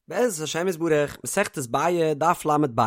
בעזרת השם יתברך, מסכת ביעא, דף ל"ב.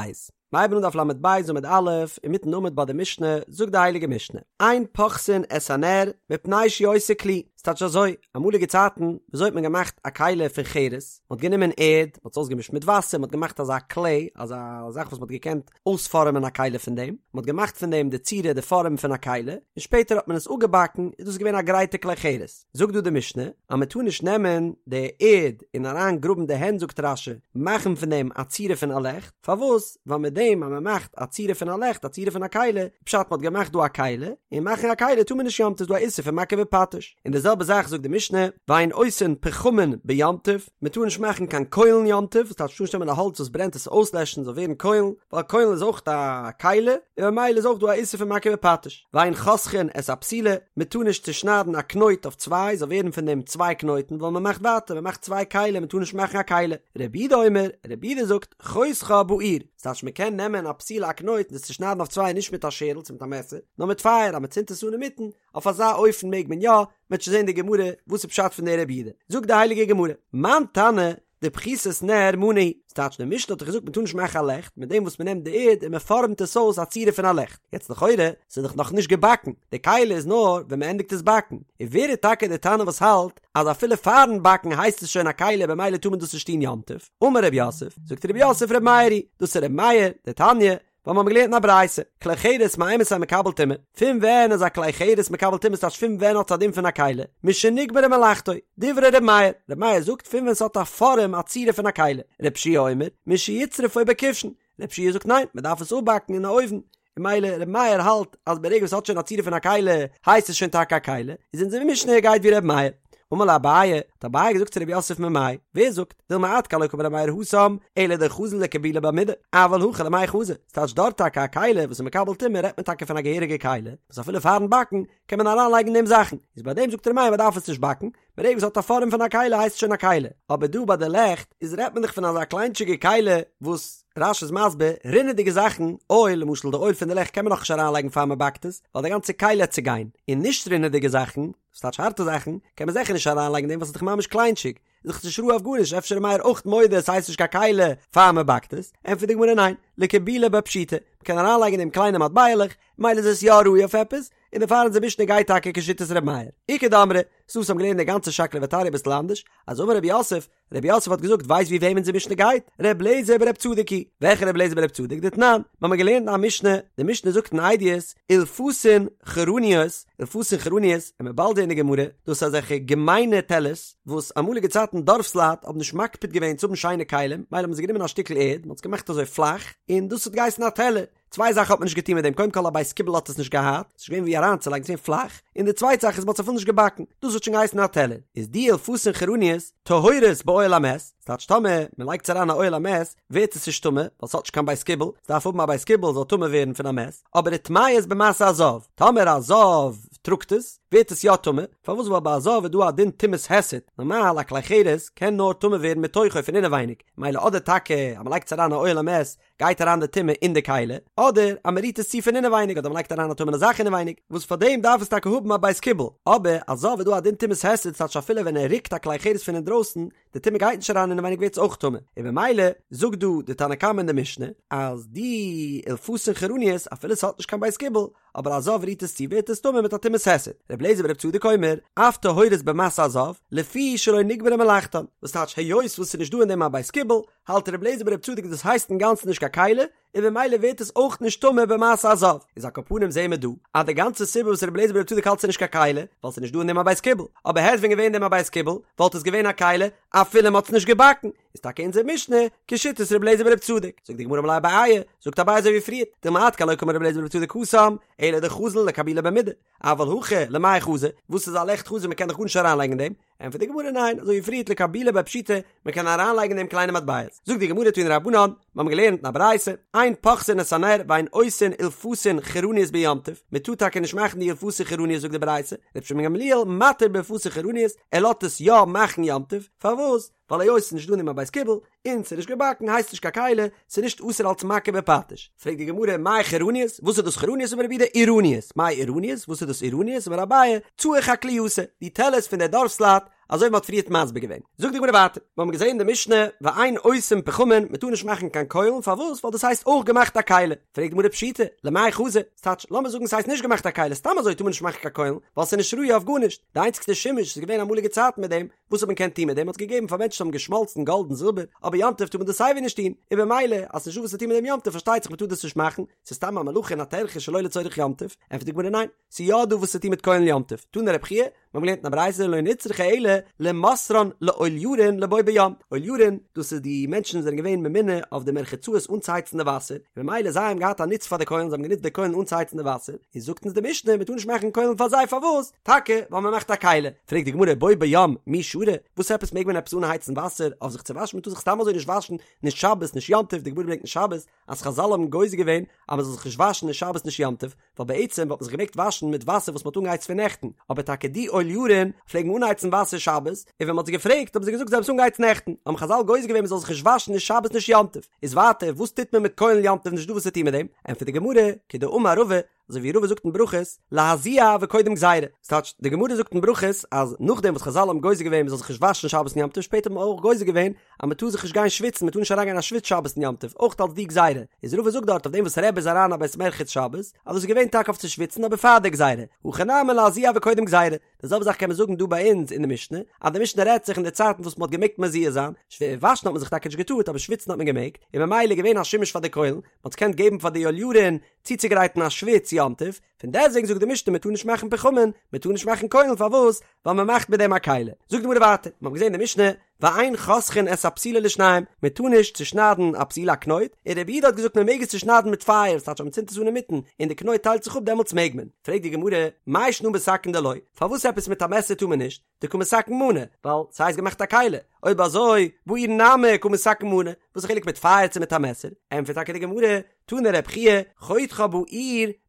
מ'הייבן אן דף ל"ב עמוד א', אינמיטן עמוד ביי די משנה, זאגט די הייליגע משנה, אין פוחתין את הנר, מפני שהוא עושה כלי. ס'טייטש אזוי, אמאליגע צייטן, וויאזוי האט מען געמאכט א כלי פון חרס? מ'האט גענומען ערד, מ'האט עס אויסגעמישט מיט וואסער, מ'האט געמאכט אזא כלי, אזא זאך וואס מ'האט געקענט אויספארעמען א כלי פון דעם, מ'האט געמאכט פון דעם די צורה, די פארעם פון א כלי, און שפעטער האט מען עס אפגעבאקן, איז דאס געווען א גרייטע כלי חרס. זאגט דא די משנה אז מען טאר נישט נעמען די ערד און אריין גראבן די הענט זאגט רש"י מאכן פון דעם א צורה פון א לעכט, פארוואס? ווייל מיט דעם אז מען מאכט א צורה פון א לעכט א צורה פון א כלי, פשט מען האט געמאכט דא א כלי, און מאכן א כלי טאר מען נישט יום טוב איז דא א איסור פון מכה בפטיש, און די זעלבע זאך זאגט די משנה ואין עושין פחמין ביום טוב, מען טאר נישט מאכן קיין קוילן יום טוב, וואס טייטש מ'טאר נישט נעמען א האלץ וואס ברענט עס אויסלעשן זאל ווערן קוילן, ווייל קוילן איז אויך א כלי, און ממילא איז אויך דא א איסור פון מכה בפטיש. ואין חותכין את הפתילה, מען טאר נישט צושניידן א קנויט אויף צוויי, זאל ווערן פון דעם צוויי קנויטן, ווייל מען מאכט ווייטער, מען מאכט צוויי כלים, מען טאר נישט מאכן א כלי. רבי יהודה אומר, רבי יהודה זאגט, חותכה באור, ס'טייטש מען קען נעמען א פתילה א קנויט און עס צושניידן אויף צוויי נישט מיט א שערל צו מיט א מעסער, נאר מיט פייער, אז מען צינדט עס אן אינמיטן, אויף אזא אופן מעג מען יא, מען וועט שוין זען די גמרא וואס איז פשט פון דער רבי יהודה. זאגט די הייליגע גמרא, מאן תנא, דפחיתת נר מנא הוא, ס'טייטש די משנה האט דאך געזאגט מ'טאר נישט מאכן א לעכט מיט דעם וואס מ'נעמט די ערד און מ'פארעמט עס אויס א צורה פון א לעכט, יעצט לכאורה ס'איז דאך נאך נישט געבאקן, די כלי איז נאר ווען מ'ענדיגט עס באקן, און ווער איז טאקע די תנא וואס האלט אז אפילו פארן באקן הייסט עס שוין א כלי במילא טאר מען דאס נישט טון יום טוב? אמר רב יוסף, זאגט רב יוסף ר' מאיר היא, דאס איז ר' מאיר, דתניא, ווייל מיר האבן געלערנט אין א ברייתא, כלי חרס מאימתי מקבל טומאה, פון ווען איז א כלי חרס מקבל טומאה ס'טייטש פון ווען האט עס א דין פון א כלי, משנגמרה מלאכתו, דברי ר' מאיר, ר' מאיר זאגט פון ווען ס'האט א פארעם א צורה פון א כלי, ר' יהושע אומר, משיצרפו בכבשן, ר' יהושע זאגט ניין, מ'דארף עס אפבאקן אין א אויוון, און ממילא ר' מאיר האלט אז ברגע וואס ס'האט שוין א צורה פון א כלי הייסט עס שוין טאקע א כלי, איז אונזער משנה גייט ווי ר' מאיר. אמר ליה אביי, האט אביי געזאגט צו רב יוסף ממאי, ווער זאגט, דילמא עד כאן לא קאמר ר' מאיר התם, אלא דחזי לקבולי בה מידי, אבל הכא למאי חזי, ס'טייטש דארט טאקע א כלי וואס איז מקבל טומאה רעדט מען טאקע פון א געהעריגע כלי, וואס אפילו פארן באקן קען מען אריין לייגן אין דעם זאכן, איז ביי דעם זאגט ר' מאיר מ'דארף עס נישט באקן, ברגע וואס ס'האט א פארעם פון א כלי הייסט עס שוין א כלי, אבער דא ביי די לעכט איז רעדט מען דאך פון אזא קליינטשיגע כלי וואס רש"י איז מסביר, רינעדיגע זאכן, אויל, למשל די אויל פון די לעכט קען מען נאכנישט אריינלייגן פאר מ'באקט עס, ווייל די גאנצע כלי העט צוגיין, און נישט רינעדיגע זאכן, ס'טייטש הארטע זאכן, קען מען זיכער נישט אריינלייגן אין דעם ווייל ס'איז דאך ממש קליינטשיג, איז דאך נישט ראוי אויף גארנישט, אפשר איז מאיר אויך מודה עס הייסט נישט קיין כלי פאר מען באקט עס, ענטפערט די גמרא ניין, לקבולי בה פשיטא, מ'קען אריינלייגן אין דעם קליינע מטבע'לעך, מילא איז עס יא ראוי אויף עפעס, און דערפאר אונזער משנה גייט טאקע כשיטת ר' מאיר. איכא דאמרי, ס'דא וואס האבן געלערנט די גאנצע שקלא וטריא אביסל אנדערש, אז אמר רב יוסף, רב יוסף האט געזאגט ווייסט ווי וועם אונזער משנה גייט? ר' אליעזר בר' צדוק היא, וועלכע ר' אליעזר בר' צדוק? דתנן, מיר האבן געלערנט א משנה, די משנה זאגט אין עדיות, אילפסין חרניות, אילפסין חרניות, און מ'וועט באלד זען אין די גמרא, דאס איז אזעלכע געמיינע טעלערס, וואס אמאליגע צייטן דארפסלייט האבן נישט מקפיד געווען צו האבן שיינע כלים, מילא האבן זיי גענומען א שטיקל ערד, מען האט עס געמאכט אזוי פלאך, און דאס האט געהייסן א טעלער. צוויי זאכן האט מען נישט געטון מיט דעם, קודם כל א בית קיבול האט עס נישט געהאט, ס'איז נישט געווען ווי אריינצולייגן, ס'איז געווען פלאך, און די צווייטע זאך איז מ'האט עס אפילו נישט געבאקן, דאס האט שוין געהייסן א טעלער, איז די אילפסין חרניות טהורות באוהל המת, ס'טייטש טאמער מ'לייגט עס אריין א אוהל המת ווערט עס נישט טמא, ווייל ס'האט נישט קיין בית קיבול, ס'דארף האבן א בית קיבול זאל טמא ווערן פון א מת, אבער וטמאות במשא הזב, טאמער א זב טראגט עס, ווערט עס יא טמא, פארוואס ווייל ביי א זב איז דא א דין טומאת היסט, נארמאל א כלי חרס קען נאר טמא ווערן מתוכו פון אינעווייניג, מילא אדער טאקע אז מ'לייגט עס אריין א אוהל המת גייט אריין די טומאה אין די כלי, אדער אז מען רירט עס צו פון אינעווייניג אדער מען לייגט אריין א טמא'נע זאך אינעווייניג, וואס פאר דעם דארף עס טאקע האבן א בית קיבול, אבער א זב איז דא א דין טומאת היסט ס'טייטש אפילו ווען ער רוקט א כלי חרס פון אינדרויסן, די טומאה גייט נישט אריין אינעווייניג ווערט עס אויך טמא, און במילא זאגט דא די תנא קמא אין די משנה אז די אילפסין חרניות אפילו ס'האט נישט קיין בית קיבול, אבער א זב רירט עס צו ווערט עס טמא מיט א טומאת היסט, ר' אליעזר בר' צדוק אומר, אף טהורות במשא הזב, לפי שלא נגמרה מלאכתן, וואס טייטש היות וואס ס'איז נישט דא אין דעם א בית קיבול, האלט ר' אליעזר בר' צדוק דאס הייסט אינגאנצן נישט קיין כלי, און במילא ווערט עס אויך נישט טמא במשא הזב, איז על כל פנים זעהן מיר דא אז די גאנצע סיבה וואס ר' אליעזר בר' צדוק האלט ס'איז נישט קיין כלי, ווייל ס'איז נישט דא אין דעם א בית קיבול, אבער העט ווען געווען אין דעם א בית קיבול, וואלט עס געווען א כלי, אפילו מ'האט עס נישט געבאקן, איז טאקע אונזער משנה כשיטת ר' אליעזר בר' צדוק, זאגט די גמרא אמר ליה אביי, זאגט אביי אזוי ווי פריער, דילמא עד כאן לא קאמר ר' אליעזר בר' צדוק התם, אלא דחזי לקבולי בה מידי, אבל הכא למאי חזי, וואס איז א לעכט חזי מ'קען דאך גארנישט אריינלייגן אין דעם, ענטפערט די גמרא ניין, אזוי ווי פריערט לקבולי בה פשיטא, מען קען אריינלייגן אין דעם קליינע מטבעות. זאגט די גמרא תנו רבנן, מיר האבן געלערנט אין א ברייתא, אין פוחתין את הנר ואין עושין אילפסין חרניות ביום טוב, מען טאר טאקע נישט מאכן די אילפסין חרניות זאגט די ברייתא, רבן שמעון בן גמליאל מתיר באילפסין חרניות, ער לאזט עס יא מאכן יום טוב, פארוואס? ווייל היות ס'איז נישט דא אין דעם א בית קיבול, און ס'איז נישט געבאקן הייסט נישט קיין כלי, ס'איז נישט אסור אלס מכה בפטיש. פרעגט די גמרא, מאי חרניות? וואס איז דאס חרניות? אמר רב יהודה עירניות. מאי עירניות? וואס איז דאס עירניות? אמר אביי, צעי חקלייתא, די טעלערס פון די דארפסלייט, אזוי ווי מ'האט פריערט מסביר געווען. זאגט די גמרא ווייטער, מיר האבן געזען אין די משנה, ואין עושין פחמין, מ'טאר נישט מאכן קיין קוילן, פארוואס? ווייל דאס הייסט אויך געמאכט א כלי. פרעגט די גמרא פשיטא, למאי חזי? ס'טייטש, לאמיר זאגן ס'הייסט נישט געמאכט א כלי, סתם אזוי טאר מען נישט מאכן קיין קוילן, ווייל ס'איז נישט ראוי אויף גארנישט. די איינציגסטע שימוש איז געווען אמאליגע צייטן מיט דעם, וואס האט מען געקענט טון מיט דעם? מ'האט עס געגעבן פאר מענטשן וואס האבן געשמאלצן גאלד און זילבער, אבער יום טוב טאר מען דאס סייווי נישט טון, און במילא אז ס'נישטא וואס צו טון מיט דעם יום טוב פארשטייט זיך מ'טאר דאס נישט מאכן, ס'איז סתם א מלאכה און א טרחה שלא לצורך יום טוב, ענטפערט די גמרא ניין, ס'איז יא דא וואס צו טון מיט קוילן יום טוב, תנא רבי חייא, מיר האבן געלערנט אין א ברייתא לא נצרכה אלא למוסרן לאוליארין לבו ביום, אוליארין, דאס איז די מענטשן וואס זענען געווען ממונה אויף די מרחצאות אנצוהייצן די וואסער, און במילא זיי האבן געהאט א נוץ פאר די קוילן, זיי האבן גענוצט די קוילן אנצוהייצן די וואסער, איז זאגט אונז די משנה מ'טאר נישט מאכן קוילן פאר זיי פארוואס? טאקע ווייל מ'מאכט א כלי, פרעגט די גמרא בו ביום מי שרי, וואס עפעס מעג מען עפעס אנהייצן וואסער אויף זיך צו וואשן, מ'טאר זיך סתם אזוי נישט וואשן, נישט שבת נישט יום טוב, די גמרא ברענגט אין שבת אז חזל האבן גוזר געווען אז מ'זאל זיך נישט וואשן נישט שבת נישט יום טוב, ווייל בעצם וואלט מען זיך געמעגט וואשן מיט וואסער וואס מ'האט אנגעהייצט פון נעכטן, אבער טאקע די אוליארין פלעגן אנהייצן וואסער שבת, און ווען מ'האט זיי געפרעגט האבן זיי געזאגט זיי האבן עס אנגעהייצט נעכטן, האבן חזל גוזר געווען מ'זאל זיך נישט וואשן נישט שבת נישט יום טוב, איז ווייטער וואס טוט מען מיט קוילן יום טוב נישט דא וואס צו טון מיט דעם, ענטפערט די גמרא, כדאמר רבא, אזוי ווי רבא זאגט אין ברכות, להזיע וקודם גזירה, ס'טייטש, די גמרא זאגט אין ברכות אז נאכדעם וואס חזל האבן גוזר געווען מ'זאל זיך נישט וואשן שבת און יום טוב, שפעטער האט מען אויך גוזר געווען אז מ'טאר זיך נישט גיין שוויצן, מ'טאר נישט אריינגיין אין א שוויץ שבת און יום טוב, אויך אלס די גזירה, איז רבא זאגט דארט אויף דעם וואס רבי איז אריין א בית מרחץ שבת, אז דאס איז געווען טאקע אויף צו שוויצן אבער פאר די גזירה, הכא נמי להזיע וקודם גזירה, די זעלבע זאך קען מען זאגן דא ביי אונז אין די משנה, אז די משנה רעדט זיך אין די צייטן וואס מ'האט געמעגט מזיע זיין, וואשן האט מען זיך טאקע נישט געטארט אבער שוויצן האט מען געמעגט, און ממילא איז געווען א שימוש פאר די קוילן, מ'האט עס געקענט געבן פאר די אוליארין צוצוגרייטן א שוויץ יום טוב, פון דעסטוועגן זאגט די משנה מען טאר נישט מאכן פחמין, מען טאר נישט מאכן קוילן פארוואס? ווייל מען מאכט מיט דעם א כלי. זאגט די גמרא ווייטער, מען האט געזען אין די משנה, ואין חותכין את הפתילה לשניים, מען טאר נישט צושניידן א פתילה א קנויט, און רבי יהודה האט געזאגט מען מעג עס צושניידן מיט פייער, ס'טייטש אז מען צינדט עס אן אינמיטן און די קנויט טיילט זיך אפ דעמאלטס מעג מען. פרעגט די גמרא, מאי שנא בסכין דלא, פארוואס עפעס מיט א מעסער טאר מען נישט? דקא מתקן מנא, ווייל ס'הייסט געמאכט א כלי, אויב אזוי, באור נמי קא מתקן מנא, וואס איז חילוק מיט פייער צו מיט א מעסער? ענטפערט טאקע די גמרא, תנא רב חייא, חותכה באור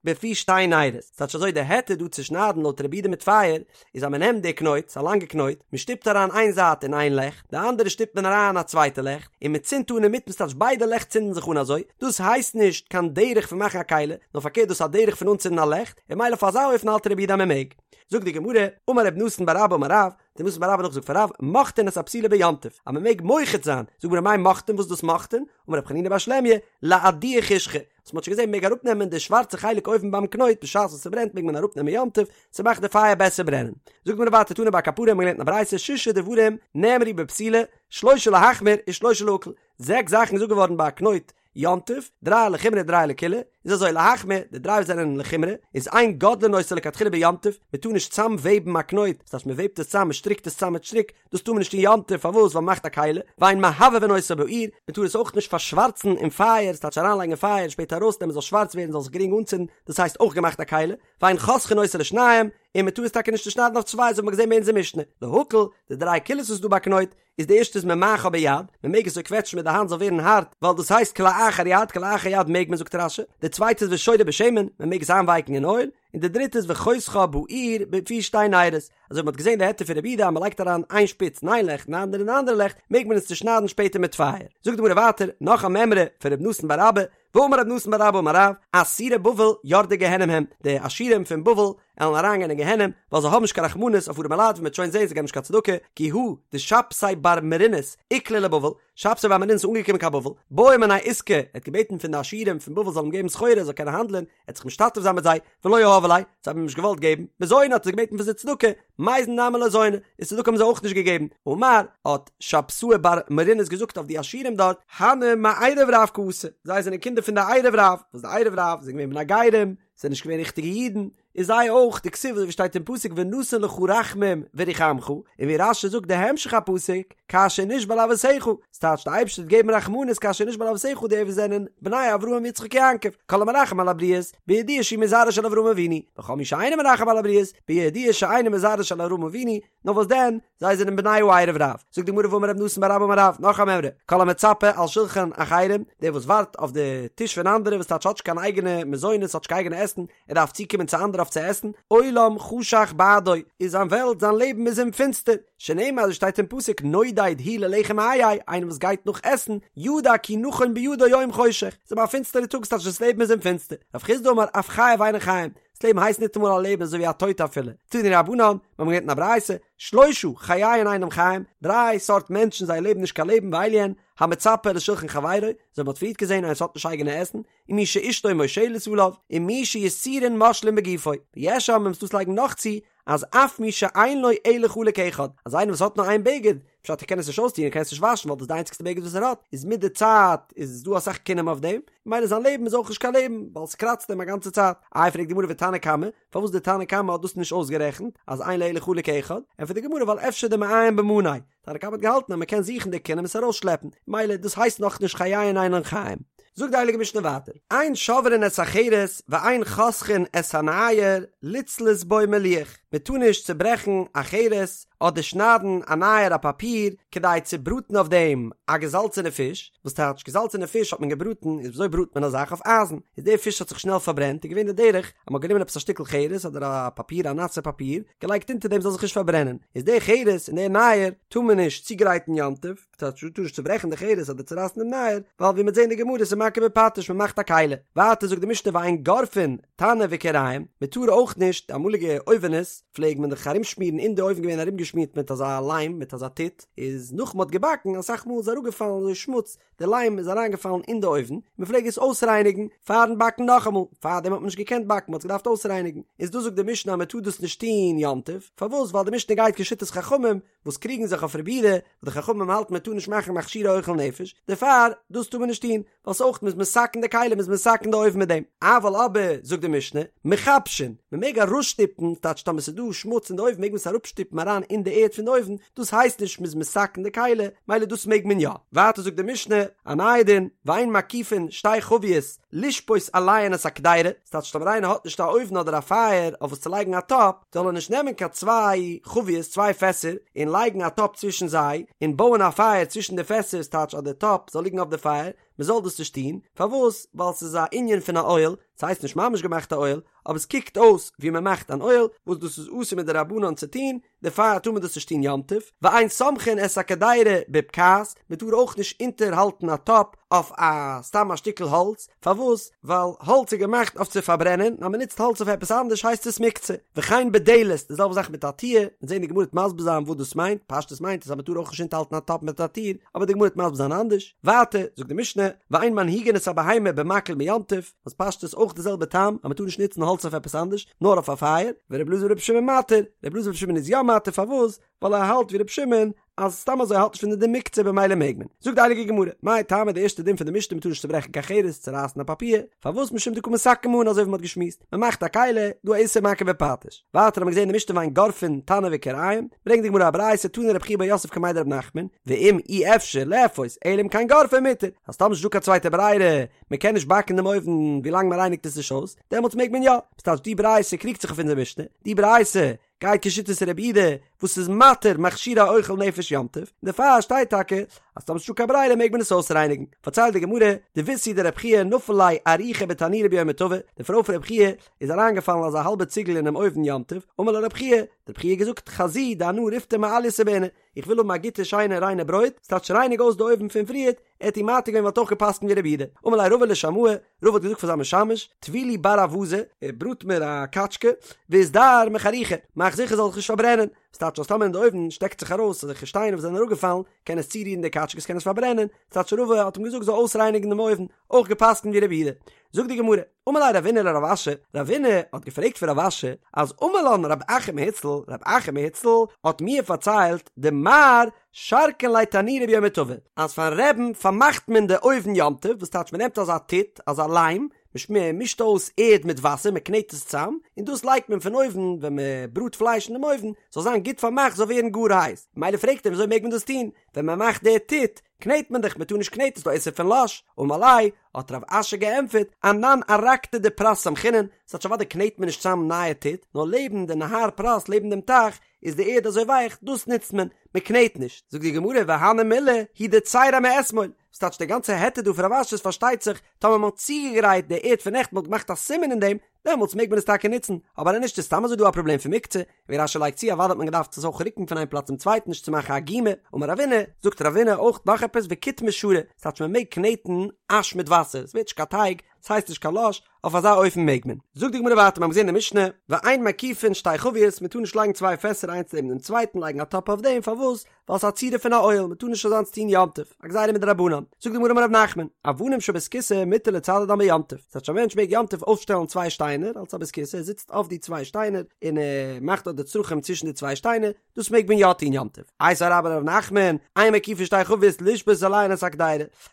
בפי שתי נרות, ס'טייטש אזוי די היתר דא צו שניידן לויט רבי יהודה מיט פייער, איז אז מ'נעמט די קנויט, ס'איז א לאנגע קנויט, מ'שטופט אריין איין זייט אין איין לעכט, די אנדערע שטופט מען אריין אין א צווייטע לעכט, און מ'צינדט אן אינמיטן ס'טייטש ביידע לעכט צינדן זיך אן אזוי, דאס הייסט נישט קיין דרך פון מאכן א כלי, נאר פארקערט דאס איז א דרך פון אנצינדן א לעכט, און ממילא אויף אזא אופן האלט רבי יהודה אז מ'מעג. זאגט די גמרא, אמר רב נתן בר אבא אמר רב, רב נתן בר אבא נאכגעזאגט פון רב, מוחטין את הפתילה ביום טוב, אז מען מעג מוחט זיין, זאגט די גמרא מאי מוחטין וואס איז דאס מוחטין, אמר רב חנינא בר שלמיא, לאדויי חושכא, וואס מען האט שוין געזען מען מעג אראפנעמען די שווארצע חלק אויבן ביים קנויט בשעת וואס ס'ברענט מעג מען אראפנעמען יום טוב, ס'מאכט די פייער בעסער ברענען. זאגט די גמרא ווייטער תני בר קפרא האט מען געלערנט אין א ברייתא שישה דברים נאמרו בפתילה, שלושה להחמיר ושלושה להקל, זעקס זאכן איז געזאגט געווארן ביי א קנויט יום טוב, דריי לחומרא דריי לקולא, איז אזוי להחמיר, די דריי וואס זענען לחומרא, איז אין גודלין אותה לכתחילה ביום טוב, מען טאר נישט צאם וועבן א קנויט, דאס הייסט מען וועבט עס צאם, מען שטריקט עס צאם מיט שטריק, דאס טאר מען נישט אין יום טוב, פארוואס? ווייל מען מאכט א כלי, ואין מהבהבין אותה באור, מען טאר עס אויך נישט פארשווארצן אין פייער, ס'טייטש אריינלייגן אין פייער און שפעטער ארויסנעמען זאל שווארץ ווערן זאל זיך גרינג אנצינדן, דאס הייסט אויך געמאכט א כלי, ואין חותכין אותה לשניים, און מען טאר עס טאקע נישט צושניידן אויף צוויי, אזוי האט מען געזען ביי אונזער משנה, להקל, די דריי קולות וואס איז דא ביי קנויט, איז די ערשטע איז ממעכה ביד, מען מעג עס אזוי קוועטשן מיט די האנט זאל ווערן הארט, ווייל דאס הייסט כלאחר יד, כלאחר יד מעג מען זאגט רש"י, די צווייטע איז ושורה בשמן, מען מעג עס איינווייקן אין אויל, און די דריטע איז וחותכה באור בפי שתי נרות, אזוי ווי מען האט געזען די היתר פון רבי יהודה אז מען לייגט אריין איין שפיץ אין איין לעכט און די אנדערע אין די אנדערע לעכט, מעג מען עס צושניידן שפעטער מיט פייער. זאגט די גמרא ווייטער, נאך א מימרא פון ר' נתן בר אבא, ואמר רב נתן בר אבא אמר רב, עשורי בבל יורדי גיהנום הם, די עשירים פון בבל עלן אריינגיין אין גיהנום, ווייל זיי האבן נישט קיין רחמנות אויף ארעמע לייט, ווי מ'וועט שוין זען זיי געבן נישט קיין צדקה, כי הא דשבתאי בר מרינוס איקלע לבבל, שבתאי בר מרינוס איז אנגעקומען קיין בבל, בעא מינייהו עיסקא, ער האט געבעטן פון די עשירים פון בבל זאלן אים געבן סחורה ער זאל קענען האנדלען, ער האט זיך משתתף זיין מיט זיי, ולא יהבו ליה, זיי האבן אים נישט געוואלט געבן, מזוני האט ער געבעטן פון זיי צדקה, מייזן נמי לא זיינו, און צדקה האבן זיי אויך נישט געגעבן, אמר, האט שבתאי בר מרינוס געזאגט אויף די עשירים דארט, הני מערב רב קאתו, זיי זענען קינדער פון די ערב רב, וואס די ערב רב זענען געווען בני גרים, זענען נישט געווען ריכטיגע אידן, איז זיי אויך, דכתיב אזוי ווי שטייט אין פסוק ונתן לך רחמים ורחמך, און ווי רש"י זאגט די המשך הפסוק, כאשר נשבע לאבותיך, ס'טייטש די אייבערשטער וועט געבן רחמנות כאשר נשבע לאבותיך די וואס זענען בני אברהם יצחק יעקב, כל המרחם על הבריות, בידוע שהוא מזרעו של אברהם אבינו, וכל מי שאינו מרחם על הבריות, בידוע שאינו מזרעו של אברהם אבינו, נאר וואס דען, זיי זענען בני הערב רב. זאגט די גמרא ואמר רב נתן בר אבא אמר רב, נאך א מימרא, כל המצפה על שלחן אחרים, דער וואס ווארט אויף די טיש פון אנדערע, וואס טייטש האט נישט קיין אייגענע מזונות, האט נישט קיין אייגענע עסן, ער דארף צוקומען צו אנדערע אויף צו עסן, עולם חשך בעדו, איז זיין וועלט, זיין לעבן איז אים פינסטער. שנאמר אזוי שטייט אין פסוק נודד הוא ללחם איה, איינער וואס גייט נאך עסן, ידע כי נכון בידו יום חושך, ס'איז אים א פינסטערע טאג ס'טייטש דאס לעבן איז אים פינסטער, רב חסדא אמר אף חייו אינן חיים, דאס לעבן הייסט ניטאמאל א לעבן אזוי ווי א טויט אפילו, תנו רבנן, מיר האבן געלערנט אין א ברייתא, שלושה חייהן אינם חיים, דריי סארט מענטשן זייער לעבן נישט קיין לעבן ואלו הן, המצפה לשולחן חברו, אזוי ווי מ'האט פריערט געזען איינער וואס האט נישט אייגענע עסן, ומי שאשתו מושלת עליו, ומי שיסורין מושלין בגופו, ויש אומרים ס'דא וואס לייגן נאך צו, אז אף מי שאין לו אלא חלוק אחד, אז איינער וואס האט נאר איין בגד, פשט ער קען עס נישט אויסטון ער קען עס נישט וואשן ווייל דאס איז די איינציגסטע בגד וואס ער האט, איז מיט די צייט איז דא אסאך כינים אויף דעם, ממילא זיין לעבן איז אויך נישט קיין לעבן, ווייל ס'קראצט אים א גאנצע צייט. איי פרעגט די גמרא ותנא קמא, פארוואס די תנא קמא האט דאס נישט אויסגערעכנט, אז אין לו אלא חלוק אחד, ענטפערט די גמרא ווייל אפשר דמעיין במניה, תנא קמא האט געהאלטן אז מען קען זוכן די כינים עס ארויסשלעפן, מילא דאס הייסט נאכנישט חייהן אינן חיים. זאגט די הייליגע משנה ווייטער, אין שוברין את החרס ואין חותכין את הנייר לצלות בו מליח, מען טאר נישט צוברעכן א חרס אדער שניידן א נייר א פאפיר כדי צו בראטן אויף דעם א געזאלצענע פיש, וואס טייטש געזאלצענע פיש האט מען געבראטן, איז וויאזוי בראט מען א זאך אויף אייזן, איז די פיש האט זיך שנעל פארברענט איז געווען די דרך אז מען האט גענומען עפעס א שטיקל חרס אדער א פאפיר א נאסע פאפיר געלייגט אונטער דעם זאל זיך נישט פארברענען, איז די חרס און די נייר טאר מען נישט צוגרייטן יום טוב, טייטש מ'טאר נישט צוברעכן די חרס אדער צורייסן דעם נייר, ווייל ווי מ'וועט זען אין די גמרא איז מכה בפטיש מען מאכט א כלי. ווייטער זאגט די משנה ואין גורפין תנור וכירים, מען טאר אויך נישט, די אמאליגע אויווענעס פלעג מען דאך ארומשמירן אין די אויוון געווען ארומגעשמירט מיט אזא ליים מיט אזא טיט, איז נאך מ'האט געבאקן אסאך מאל איז אראפגעפאלן אזוי שמוץ, די ליים איז אריינגעפאלן אין די אויוון, מען פלעג עס אויסרייניגן פארן באקן נאכאמאל, פארדעם האט מען נישט געקענט באקן, מען האט עס געדארפט אויסרייניגן, איז דא זאגט די משנה אז מען טאר דאס נישט טון יום טוב, פארוואס? ווייל די משנה גייט כשיטת חכמים וואס קריגן זיך אויף רבי יהודה, וואס די חכמים האלטן מען טאר נישט מאכן מכשירי אוכל נפש, דערפאר דאס טאר מען נישט טון, ווייל ס'אויך מ'איז מתקן די כלים מ'איז מתקן די אויוון מיט דעם, אבל אבער זאגט די משנה, מכבשין, מ'מעג אראפשטופן, טייטש טאמער ס'איז דא שמוץ אין די אויוון מעג מען עס אראפשטופן אריין אין די ערד פון די אויוון, דאס הייסט נישט מ'איז מתקן די כלי, מילא דאס מעג מען יא. ווייטער זאגט די משנה, א נייע דין, ואין מקיפין שתי חביות לשפות עליהן את הקדירה, ס'טייטש טאמער איינער האט נישט א אויוון אדער א פייער אויף וואס צו לייגן א טאפ, זאל ער נישט נעמען קיין צוויי חביות, צוויי פעסער, און לייגן א טאפ צווישן זיי, און בויען א פייער צווישן די פעסער, ס'טייטש אז די טאפ זאל ליגן אויף די פייער, מען זאל דאס נישט טון, פארוואס? ווייל ס'איז א ענין פון א אוהל, ס'הייסט נישט ממש געמאכט א אוהל, אבער עס קוקט אויס ווי מען מאכט אן אוהל, וואס דאס איז אסור מדרבנן צו טון, דערפאר טאר מען דאס נישט טון יום טוב, ואין סומכין את הקדירה בבקעת, מען טאר אויך נישט אונטערהאלטן א טאפ אויף א סתם א שטיקל האלץ, פארוואס? ווייל האלץ איז געמאכט אויף צו פארברענען, און אז מען נוצט האלץ אויף עפעס אנדערש הייסט עס מוקצה. וכן בדלת, די זעלבע זאך מיט א טיר, מ'וועט זען די גמרא וועט מסביר זיין וואס דאס מיינט, פשטות מיינט עס אז מען טאר אויך נישט אונטערהאלטן א טאפ מיט א טיר, אבער די גמרא וועט מסביר זיין אנדערש. ווייטער זאגט די משנה, ואין מנהיגין את הבהמה במקל ביום טוב, וואס פשטות אויך די זעלבע טעם אז מען טאר נישט נוצן האלץ אויף עפעס אנדערש, נאר אויף א פייער, ור' אלעזר בר' שמעון מתיר, ר' אלעזר בר' שמעון איז יא מתיר, פארוואס? ווייל ער האלט ווי ר' שמעון אז סתם אזוי האלט נישט פון די דין מוקצה במילא מעג מען. זאגט די הייליגע גמרא, מאי טעמא די ערשטע דין פון די משנה מ'טאר נישט צוברעכן קיין חרס, צורייסן א פאפיר, פארוואס משום דקא מתקן מאני אזוי ווי מ'האט געשמועסט, מ'מאכט א כלי, דא א איסור מכה בפטיש. ווייטער האט מען געזען אין די משנה ואין גורפין תנור וכירים, ברענגט די גמרא א ברייתא תני רב חייא בר יוסף קמיה דרב נחמן, ואם אי אפשר לאפות אלא אם כן גורפין מותר, אז טאמער ס'נישט דא קיין צווייטע ברירה, מ'קען נישט באקן דעם אויוון ווילאנג מ'רייניגט עס נישט אויס, דעמאלטס מעג מען יא. ס'טייטש די ברייתא קריגט זיך אויף אונזער משנה, די ברייתא גייט כשיטת רבי יהודה וואס איז מתיר מכשירי אוכל נפש יום טוב, און דערפאר שטייט טאקע אז טאמער ס'נישטא קיין ברירה מעג מען עס אויסרייניגן. פארציילט די גמרא, דביתהו דרב חייא נפל ליה אריחא בתנורא ביומא טבא, די פרוי פון רב חייא איז אריינגעפאלן אזא האלבע ציגל אינעם אויוון יום טוב, אמר לה רב חייא, האט רב חייא געזאגט חזי דאנא ריפתא מעלייתא בעינא, איך וויל האבן א גוטע שיינע ריינע ברויט, ס'טייטש רייניג אויס די אויוון פון פריערט, ער האט איר מתיר געווען ווייל ער האט אויך געפסקנט ווי רבי יהודה. אמר ליה רבא לשמעיה, רבא האט געזאגט פאר זיין משמש, טווי לי בר אווזא, בראט מיר א קאטשקע, ואזדהר מחרוכא, מאך זיכער זאל זיך נישט פארברענען, ס'טייטש אז טאמער אין די אויוון שטעקט זיך ארויס אזעלכע שטיינער וואס זענען אראפגעפאלן, קען עס צורירן די קאטשקע, עס קען עס פארברענען, ס'טייטש רבא האט אים געזאגט זאל אויסרייניגן דעם אויוון, אויך געפסקנט ווי רבי יהודה. זאגט די גמרא, אמר ליה רבינא לרב אשי, רבינא האט געפרעגט פון רב אשי, אז אמר לן רב אחא מהוצל, רב אחא מהוצל האט מיר פארציילט דמר שרקין ליה תנורא ביומא טבא, אז פארן רעבן פארמאכט מען די אויוון יום טוב, וואס טייטש מען נעמט אזא טיט, אזא ליים, מען מישט אויס ערד מיט וואסער, מען קנעט עס צאם, און דאס לייגט מען פון אויבן ווען מען בראט פלייש אין דעם אויוון, זאל זיין גוט פארמאכט זאל ווערן גאר הייס, ממילא פרעגט ער וויאזוי מעג מען דאס טון, ווען מען מאכט די טיט, קנעט מען דאך, מען טאר נישט קנעטן, ס'איז דא איסור פון לש, אמר ליה, האט רב אשי געענטפערט, אנן ארקתא דפרת סמכינן, ס'טייטש אוודאי קנעט מען נישט צאם נייע טיט, נאר לעבן די נהר פרת לעבן דעם טייך איז די ערד אזוי ווייך, דאס נוצט מען, מען קנעט נישט. זאגט די גמרא והני מילי הוא דצייריה מאתמול, ס'טייטש די גאנצע היתר דא פון רב אשי איז פארשטייט זיך טאמער מען האט צוגעגרייט די ערד פון נעכטן מען האט געמאכט א סימן אין דעם, דעמאלטס מעג מען עס טאקע נוצן, אבער אז נישט איז סתם אזוי דא א פראבלעם פון מוקצה, ווי רש"י לייגט צו אוודאי האט מען געדארפט עס אויך רוקן פון איין פלאץ צום צווייטן נישט צו מאכן א גומא, אמר רבינא, זאגט רבינא אויך נאך עפעס וקיטמא שרי, ס'טייטש מען מעג קנעטן אש מיט וואסער, עס ווערט נישט קיין טייג, ס'הייסט נישט קיין לש, אויף אזא אופן מעג מען. זאגט די גמרא ווייטער, מיר האבן געזען אין די משנה, ואין מקיפין שתי חביות, מען טאר נישט לייגן צוויי פעסער איינס נעבן דעם צווייטן, לייגן א טאפ אויף דעם, פארוואס? ווייל ס'איז א צורה פון א אוהל, מען טאר נישט אזאנס טון יום טוב, א גזירה מדרבנן. זאגט די גמרא אמר רב נחמן, אבנים של בית כסא מותר לצדדן ביום טוב, ס'טייטש א מענטש מעג יום טוב אויפשטעלן צוויי שטיינער אלס א בית כסא, ער זיצט אויף די צוויי שטיינער און ער מאכט דארט די צרכים צווישן די צוויי שטיינער, דאס מעג מען יא טון יום טוב. איתיביה רבה לרב נחמן, אין מקיפין שתי חביות לשבות עליהן את הקדירה,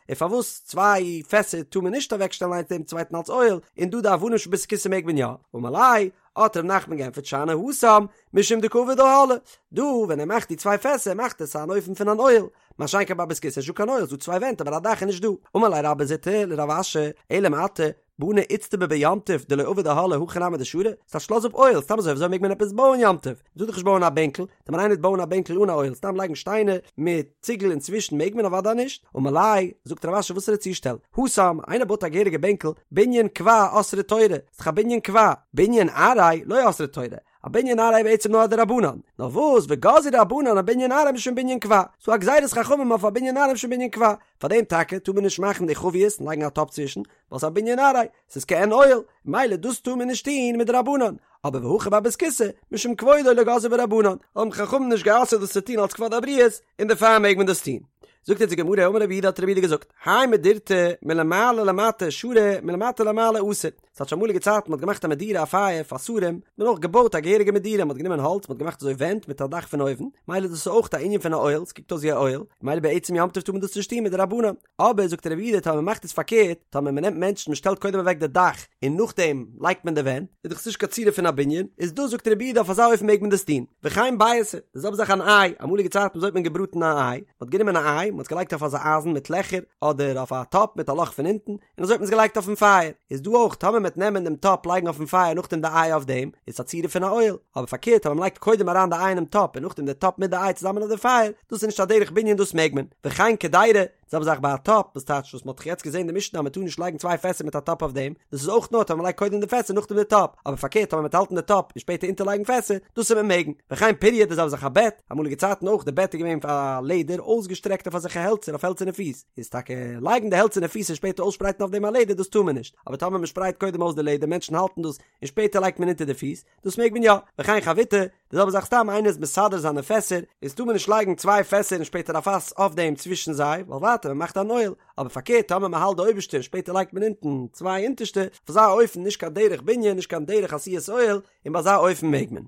און פארוואס צוויי פעסער טאר מען נישט אוועקשטעלן איינס נעבן צווייטן אלס אוהל, און דא די אבנים של בית כסא מעג מען יא? אמר ליה, האט ר' נחמן געענטפערט שאני התם, משום דקא עביד אהלא, דא ווען ער מאכט די צוויי פעסער מאכט עס אן אופן פון אן אוהל, מה שאין כן ביי בית כסא איז נישטא קיין אוהל, ס'דא צוויי ווענט אבער א דאך איז נישט דא. אמר ליה רבה זוטרא לרב אשי, אלא מעתה, בני איצטבא ביום טוב דלא עביד אהלא הכי נמי דשרי, ס'טייטש לאז אפ אוהל, סתם אזוי וויאזוי מעג מען עפעס בויען יום טוב? מ'טאר דאך נישט בויען א בענקל, טאמער איינער וועט בויען א בענקל אן א אוהל, סתם לייגן שטיינער מיט ציגל אינצווישן מעג מען אוודאי נישט, אמר ליה, זאגט רב אשי וואסערע צושטעל, התם, איינער בויט א געהעריגע בענקל, בנין קבע אסרה תורה, ס'דאך א בנין קבע, בנין עראי לא אסרה תורה, א בנין עראי בעצם נאר א דרבנן, נאר וואס וגזרו רבנן אבנין עראי משום בנין קבע, ס'דא א גזירת חכמים אויף א בנין עראי משום בנין קבע, פארדעם טאקע טאר מען נישט מאכן די חביות און לייגן א טאפ צווישן, ווייל ס'איז א בנין עראי, ס'איז כעין אוהל, מילא דאס טאר מען נישט טון מדרבנן, אבער והכא ביי בית כסא, משום כבודו לא גזרו ביה רבנן, האבן חכמים נישט גע'אסר'ט דאס צו טון אלס כבוד הבריות, און דערפאר מעג מען דאס טון. זאגט אונז די גמרא, אמר רב יהודה האט רב יהודה געזאגט, האי מדורתא מלמעלה למטה שרי מלמטה למעלה אסור, ס'טייטש אמאליגע צייטן מ'האט געמאכט א מדורה א פייער פאר שרים, האט מען אויך געבויט א געהעריגע מדורה, מ'האט גענומען האלץ מ'האט געמאכט אזוי ווענט מיט א דאך פון אויבן, מילא דאס איז אויך א ענין פון א אוהל, ס'קוקט אויס ווי א אוהל, מילא בעצם יום טוב טאר מען דאס נישט טון מדרבנן. אבער זאגט רב יהודה טאמער מ'מאכט עס פארקערט, טאמער מ'נעמט מענטשן מ'שטעלט קודם אוועק די דאך און נאכדעם לייגט מען די ווענט, איז דאך עס נישט קיין צורה פון א בנין, איז דא זאגט רב יהודה אויף אזא אופן מעג מען דאס טון. וכן ביעתא, די זעלבע זאך אן איי, אמאליגע צייטן וויאזוי האט מען געבראטן א איי, מ'האט גענומען א איי, מ'האט עס געלייגט אויף אזא אייזן מיט לעכער, אדער אויף א טאפ מיט א לאך פון אונטן, און אזוי האט מען עס געלייגט אויפן פייער, איז דא אויך טאמער מ'עט נעמען דעם טאפ לייגן אויפן פייער נאכדעם די איי אויף דעם, איז עס א צורה פון א אוהל, אבער פארקערט טאמער מ'לייגט קודם אריין די איי אינעם טאפ און נאכדעם די טאפ מיט די איי צוזאמען אויף די פייער, דאס איז נישט א דרך בנין דאס מעג מען, וכן קדירה, די זעלבע זאך ביי א טאפ, וואס טייטש וואס מ'האט דאך יעצט געזען אין די משנה אז מ'טאר נישט לייגן צוויי פעסער מיט א טאפ אויף דעם, דאס איז אויך נאר טאמער מ'לייגט קודם די פעסער נאכדעם די טאפ, אבער פארקערט טאמער מ'וועט האלטן די טאפ און שפעטער אונטערלייגן פעסער, דאס וועט מען מעגן, וכן פוריא די זעלבע זאך א בעט, אמאליגע צייטן אויך די בעט איז געווען פון לעדער אויסגעשטרעקט אויף אזעלכע העלצער אויף העלצערנע פיס, איז טאקע לייגן די העלצערנע פיס און שפעטער אויסשפרייטן אויף דעם א לעדער דאס טאר מען נישט, אבער טאמער מ'שפרייט קודם אויס די לעדער מענטשן האלטן דאס און שפעטער לייגט מען אונטער די פיס, דאס מעג מען יא, וכן חביתא, די זעלבע זאך סתם איינער איז מסדר זיינע פעסער, איז טאר מען נישט לייגן צוויי פעסער און שפעטער א פאס אויף דעם צווישן זיי, ווייל ווייטער מען מאכט אן אוהל, אבער פארקערט טאמער מען האלט די אויבערשטע און שפעטער לייגט מען אונטן צוויי אונטערשטע, אויף אזא אופן נישט קיין דרך בנין נישט קיין דרך עשיית אוהל, און ביי אזא אופן מעג מען.